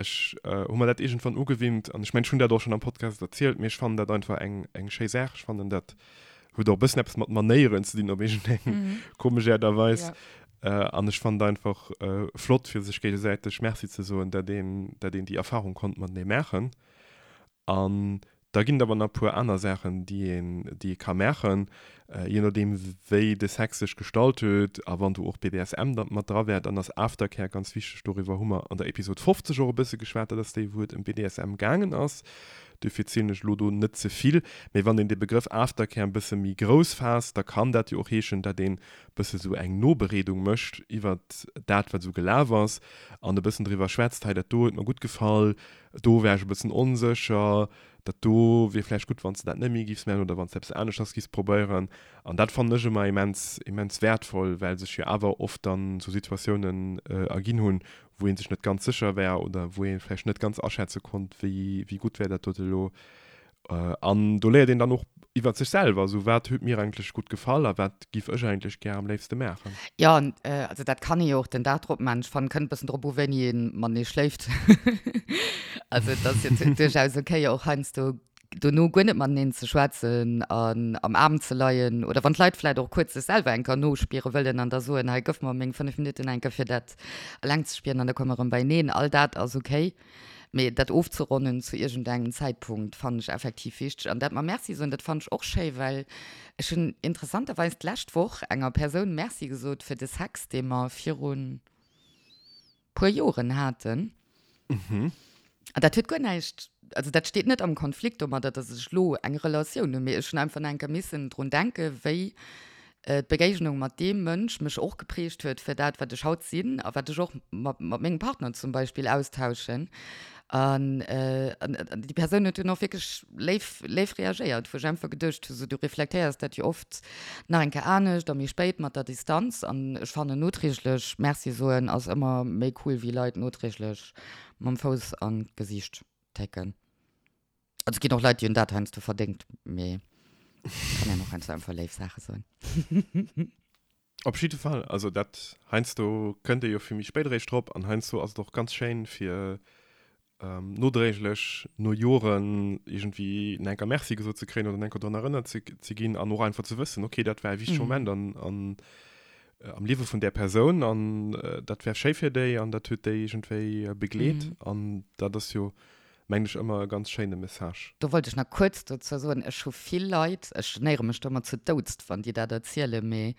Ech hu mer dat iergendwann ugewinnt an ech mengen ech hunn dat och schonn am Podcast erzielt, mee ech fannen dat einfach eng eng schéi Saach. Ech fannen dat huet och e bëssen eppes mat Manéieren ze dinn op iergendeng komesch Aart a Weis. An ech fannen et einfach flott fir sech géigesäiteg Merci ze soen, dat een dat een déi Erfarung konnt matenee maachen. An da ginn et awer nach e puer aner Saachen, déi een, déi ee ka maachen, je nodeem wéi de Sex sech gestalt huet a wann do och BDSM da mat dra wär, dann ass Aftercare ganz wichteg. Doriwwer hu mer an der Episod 50 och e bësse geschwat, dat ass déi, wou et ëm BDSM gaangen ass. Duerfir zielen ech elo do net ze vill. Mee wann een de Begrëff Aftercare e bësse méi grouss faasst, da kann dat jo och heeschen, datt een e bësse sou eng Nobereedung mécht iwwert dat, wat esou gelaf ass an e bëssen driwwer schwätzt, hei dat do huet mer gutt gefall, Do wär ech e bëssen onsécher. Dat do wier vläicht gutt, wann s de dat net méi giffs maachen oder wann s de eppes aneschters giffs probéieren. An dat fannen ech ëmmer immens, immens wäertvoll, well sech jo awer oft dann esou Situatiounen erginn hunn, wou ee sech net ganz sécher war oder wou ee vläicht net ganz aschätze konnt, wéi, wéi gutt wär dat dote elo. An do léiert een dann och iwwert sech selwer, esou wat huet mir eigentlech gutt gefall a wat giff ech eigentlech gär am léifste maachen. Jo, an also dat kann ee jo och den Dag drop maachen. Ech fannen, kënnt e bëssen drop u wéini ee matenee schléift. Also et ass jo duerchaus ok och heiansdo. Dono guer net mateneen ze schwätzen an am Aarm ze leien oder wann d'Leit vläit och kuerz sech selwer eng Kéier nospiere wëllen an da soen, hei gëff mer meng 5 Minutten eng Kéier fir dat eleng ze spieren an da komme mer erëm beieneen. All dat ass ok, mee dat ofzeronnen zu iergendengem Zäitpunkt fannen ech effektiv wichteg. An dat mam Merci soen, dat fannen ech och schéi, well ech hunn interessanterweis d'lescht Woch enger Persoun Merci gesot fir de Sex, dee mer virun puer Joren haten. Mhm. An dat huet guer näischt, also dat steet net am Konflikt domadder, dass ech elo eng Relatioun hunn, mee ech hunn einfach nach eng Kéier missen drun denken, wéi d'Begéignung mat deem Mënsch mech och geprägt huet fir dat, wat ech haut sinn a wat ech och mat mengem Partner zum Beispill austauschen. An déi Persoun huet dunn och wierklech léif, léif reagéiert, wou ech einfach geduecht hu, sou, du reflektéiers dat jo oft nach eng Kéier anescht a méi spéit mat der Distanz. An ech fannen, noträglech Merci soen ass ëmmer méi cool wéi Leit noträglech mam Fouss an d'Gesiicht técken. Also et ginn och Leit, déi hunn dat heiansdo verdéngt, mee kann een och heiansdo einfach léif Saache soen. Op jidde Fall, also dat heiansdo kënnt ee jo vill méi spéit eréischt drop an heiansdo ass et och ganz schéin fir nodréiglech no Joren iergendwéi nach enker Merci gesot ze kréien oder nach enker drun erënnert ze ze ginn an och einfach ze wëssen, okay dat war e wichtege Moment an an am Liewe vun där Persoun an dat war schéi fir déi an dat huet déi iergendwéi begleet an dat ass jo mengen ech ëmmer e ganz schéine Message. Do wollt ech nach kuerz dozou soen, ech hu vill Leit, ech genéiere mech do ëmmer zu Doudst, wann déi dat erzielen, mee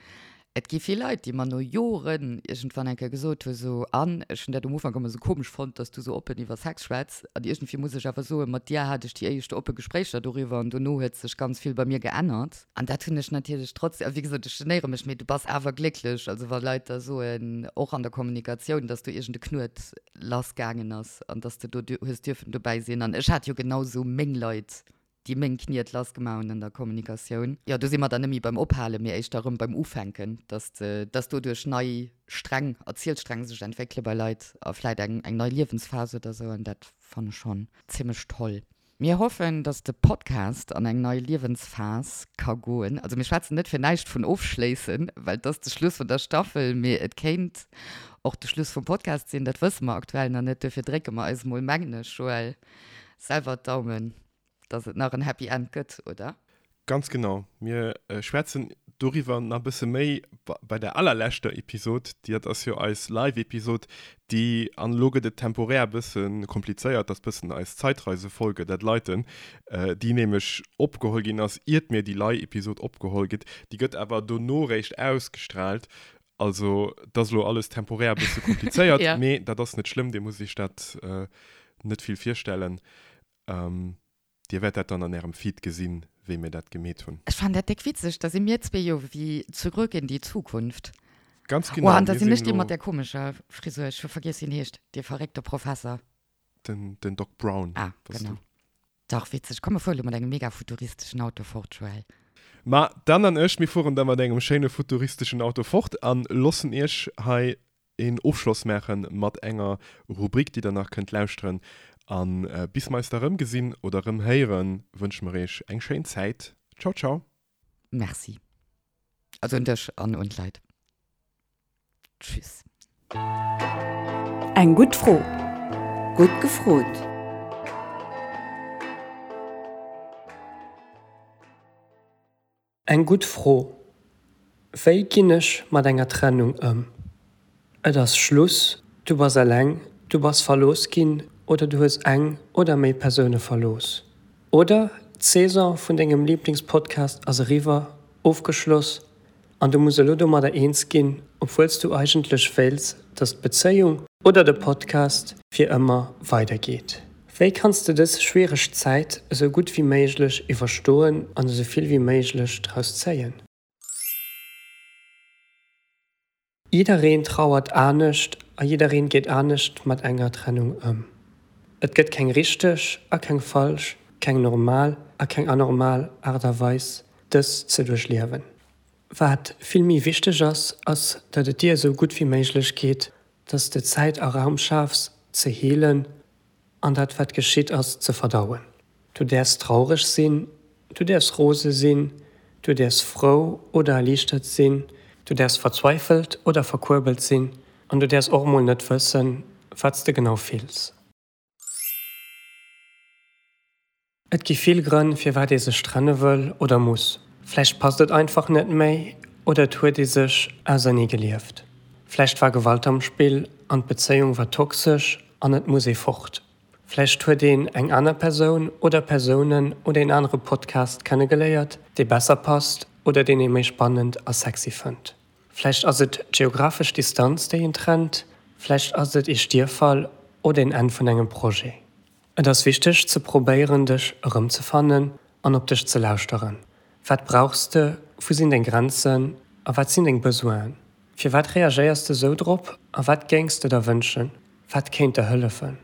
et gi vill Leit, déi mer no Joren iergendwann eng Kéier gesot hu sou, an ech hunn dat um Ufank ëmmer sou komesch fonnt, dass du sou oppen iwwer Sex schwätz, an iergendwéi muss ech awer soen, mat dir hat ech déi éischt oppe Gespréicher doriwwer an dono huet sech ganz vill bei mir geännert. An dat hunn ech natierlech trotzdem, a wéi gesot, ech genéiere mech, mee du bass awer glécklech, also wa Leit da soen, och an der Kommunikatioun, dass do iergend e Knuet lass gaangen ass an dass de do hues dierfen dobäi sinn. An ech hat jo genau sou meng Leit, déi meng Kniet lass gemaach hunn an der Kommunikatioun. Jo, do si mer dann net méi beim Ophalen, mee éischter erëm beim Ufänken, dass de, dass doduerch nei Sträng, Erzielsträng sech entwéckele bei Leit a vläit eng, eng nei Liewensphas oder sou. An dat fannen ech schonn zimmlech toll. Mir hoffen, dass de Podcast an eng nei Liewensphas ka goen. Also mir schwätzen net fir näischt vun ofschléissen, well et ass de Schluss vun der Staffel, mee et kéint och de Schluss vum Podcast sinn, dat wësse mer aktuell nach net. Duerfir drécke mer eis mol, mengen ech, Joël, selwer d'Daumen, dass et nach en Happy End gëtt, oder? Ganz genau. Mir schwätzen doriwwer nach e bësse méi bei der allerleschter Episod. Dat ass jo eis Live-Episod, déi, an elo gëtt et temporär e bësse komplizéiert, dat ass bëssen eis Zeitreisefolge, dat Leiten, déi nämlech opgeholl ginn ass, iert mir déi Live-Episod opgeholl gëtt. Déi gëtt awer dono réischt ausgestrahlt. Also, dat ass elo alles temporär e bësse komplizéiert, mee dat ass net schlëmm, Dir musst Iech dat net vill virstellen. Dir wäert dat dann an ärem Feed gesinn, wéi mir dat gemeet hunn. Ech fannen dat déck witzeg, da si mir zwee jo wéi Zurück in die Zukunft. Ganz genau, Oh, an da sinn ech dee mat där komescher Frisur, ech hu vergiess wéi en heescht, dee verréckte Professer. Den, den Doc Brown Ah, bass du. genau. Dach, witzeg. Komm, mir fuere lo mat engem mega futuristeschen Auto fort, Joël. Ma d'Anne an ech, mir fueren da mat engem schéine futuristeschen Auto fort an loossen iech hei een Ofschloss maachen mat enger Rubrik, déi der nach kënnt lauschteren. An bis mer eis da rëm gesinn oder rëm héieren, wënsche mer iech eng schéin Zäit. Ciao ciao. Merci. Also un dech an un d'Leit. Tschüss. Eng gutt Fro. Gutt gefrot. Eng gutt Fro, Wéi ginn ech mat enger Trennung ëm? Et ass Schluss, du bass eleng, du bass verlooss ginn oder du hues eng oder méi Persoune verlooss. Oder d'Saison vun dengem Liblingspodcast ass eriwwer, ofgeschloss An du muss elo domadder eens ginn, obwuel s du eigentlech wéilts, dass d'Bezéiung oder de Podcast fir ëmmer weidergeet. Wéi kanns de dës schwiereg Zäit esou gutt wéi méiglech iwwerstoen an esou vill wéi méiglech draus zéien? Jiddereen trauert anescht a jiddereen geet anescht mat enger Trennung ëm. Et gëtt keng richteg a keng falsch, keng normal a keng anormal Aart a Weis, dës ze duerchliewen. Wat vill méi wichteg ass, ass datt et dir esou gutt wéi méiglech geet, datt s de Zäit a Raum schafs ze heelen an dat wat geschitt ass ze verdauen. Du däerfs traureg sinn, du däerfs rose sinn, du däerfs frou oder erliichtert sinn, du däerfs verzweifelt oder verkuerbelt sinn an du däerfs och mol net wëssen, wat s de genau fills. Et gi vill Grënn, firwat ee sech trenne wëll oder muss. Vläicht passt et einfach net méi oder et huet ee sech ausernee gelieft. Vläicht war Gewalt am Spill an d'Bezéiung war toxesch an et muss ee fort. Vläicht huet een eng aner Persoun oder Persounen oder een anere Podcast kennegeléiert, dee besser passt oder deen ee méi spannend a sexy fënnt. Vläicht ass et d'geographesch Distanz, déi een trennt, vläicht ass et ee Stierffall oder een Enn vun engem Projet. Et ass wichteg ze probéieren dech erëmzefannen an op dech ze lauschteren. Wat brauchs de, wou sinn deng Grenzen a wat sinn deng Besoinen? Firwat reagéiers de sou drop a wat géings de der wënschen? Wat kéint der hëllefen?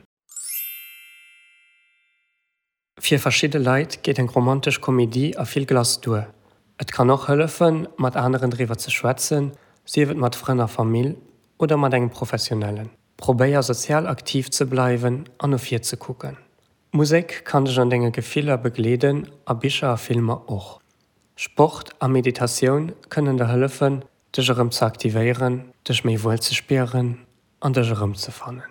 Fir verschidde Leit geet eng romantesch Komedie a vill Glace duer. Et kann och hëllefen, mat aneren driwwer ze schwätzen, sief et mat Frënn a Famill oder mat engem Professionellen. Probéier sozial aktiv ze bleiwen an no vir ze kucken. Musek kann dech an denge Gefiller begleeden a Bicher a Filmer och. Sport a Meditatioun kënnen der hëllefen, dech erëm ze aktivéieren, dech méi wuel ze spieren an dech erëmzefannen.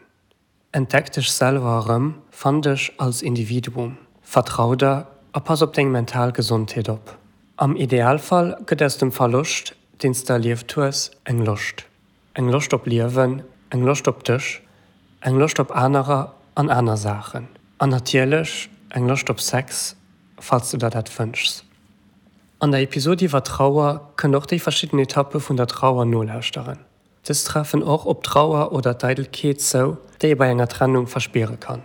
Entdeck dech selwer erëm, fann dech als Individuum, vertrau der a pass op deng mental Gesondheet op. Am Idealfall gëtt aus dem Verloscht, deen s de erlieft hues, eng Loscht. Eng Loscht op Liewen, eng Loscht op dech, eng Loscht op anerer an aner Saachen. An natierlech eng Loscht op Sex, falls du der dat wënschs. An der Episod iwwer Trauer kënnt och déi verschidden Etappe vun der Trauer nolauschteren. Dës treffen och op d'Trauer oder d'Eidelkeet zou, déi ee bei enger Trennung verspiere kann.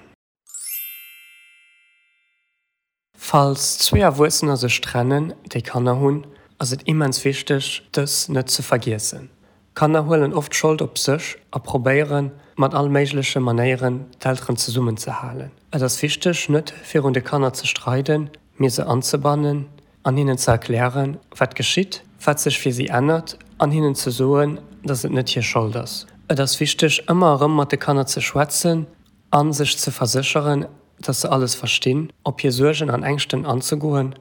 Falls zwee Erwuessener sech trennen, déi Kanner hunn, ass et immens wichteg, dës net ze vergiessen. Kanner huelen oft d'Schold op sech a probéieren, mat all méigleche Manéieren d'Elteren zesummen ze halen. Et ass wichteg, net virun de Kanner ze streiden, mee se anzebannen an hinnen ze erklären, wat geschitt, wat sech fir si ännert an hinnen ze soen, dass et net hir Schold ass. Et ass wichteg, ëmmer erëm mat de Kanner ze schwätzen a sech ze versécheren, dass se alles verstinn, op hir Suergen an Ängschten anzegoen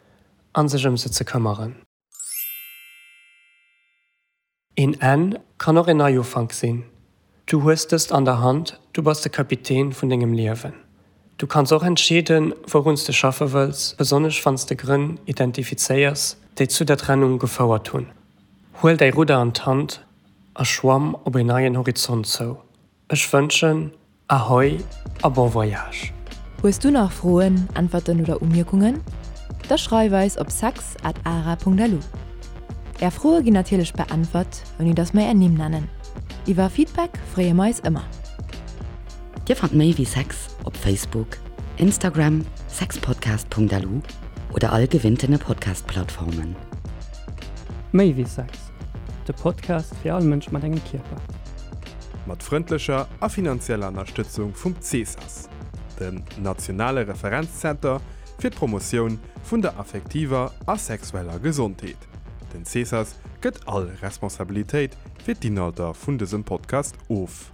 a sech ëm se ze këmmeren. Een Enn kann och een Neiufank sinn. Du hues dëst an der Hand, du bass de Kapitän vun dengem Liewen. Du kanns och entscheeden, wourun s de schaffe wëlls, besonnesch wann s de Grënn identifizéiers, déi zu der Trennung gefouert hunn. Huel däi Rudder an d'Hand a schwamm op een neien Horizont zou. Ech wënschen Ahoi a bon voyage! Hues du nach Froen, Äntwerten oder Umierkungen? Da schreif eis op sex at ara.lu. Är Froe ginn natierlech beäntwert, ouni dass mer är Nimm nennen. Iwwer Feedback freeë mer eis ëmmer. Dir fannt méi wéi Sex op Facebook, Instagram, sexpodcast.lu oder all gewinntene Podcast-Plattformen. Méi wéi Sex, de Podcast fir all Mënsch mat engem Kierper. Mat frëndlecher a finanzieller Ënnerstëtzung vum CESAS, dem nationale Referenzzenter fir d'Promotioun vun der affektiver a sexueller Gesondheet. Den CESAS gëtt all Responsabilitéit fir d'Inhalter vun dësem Podcast of.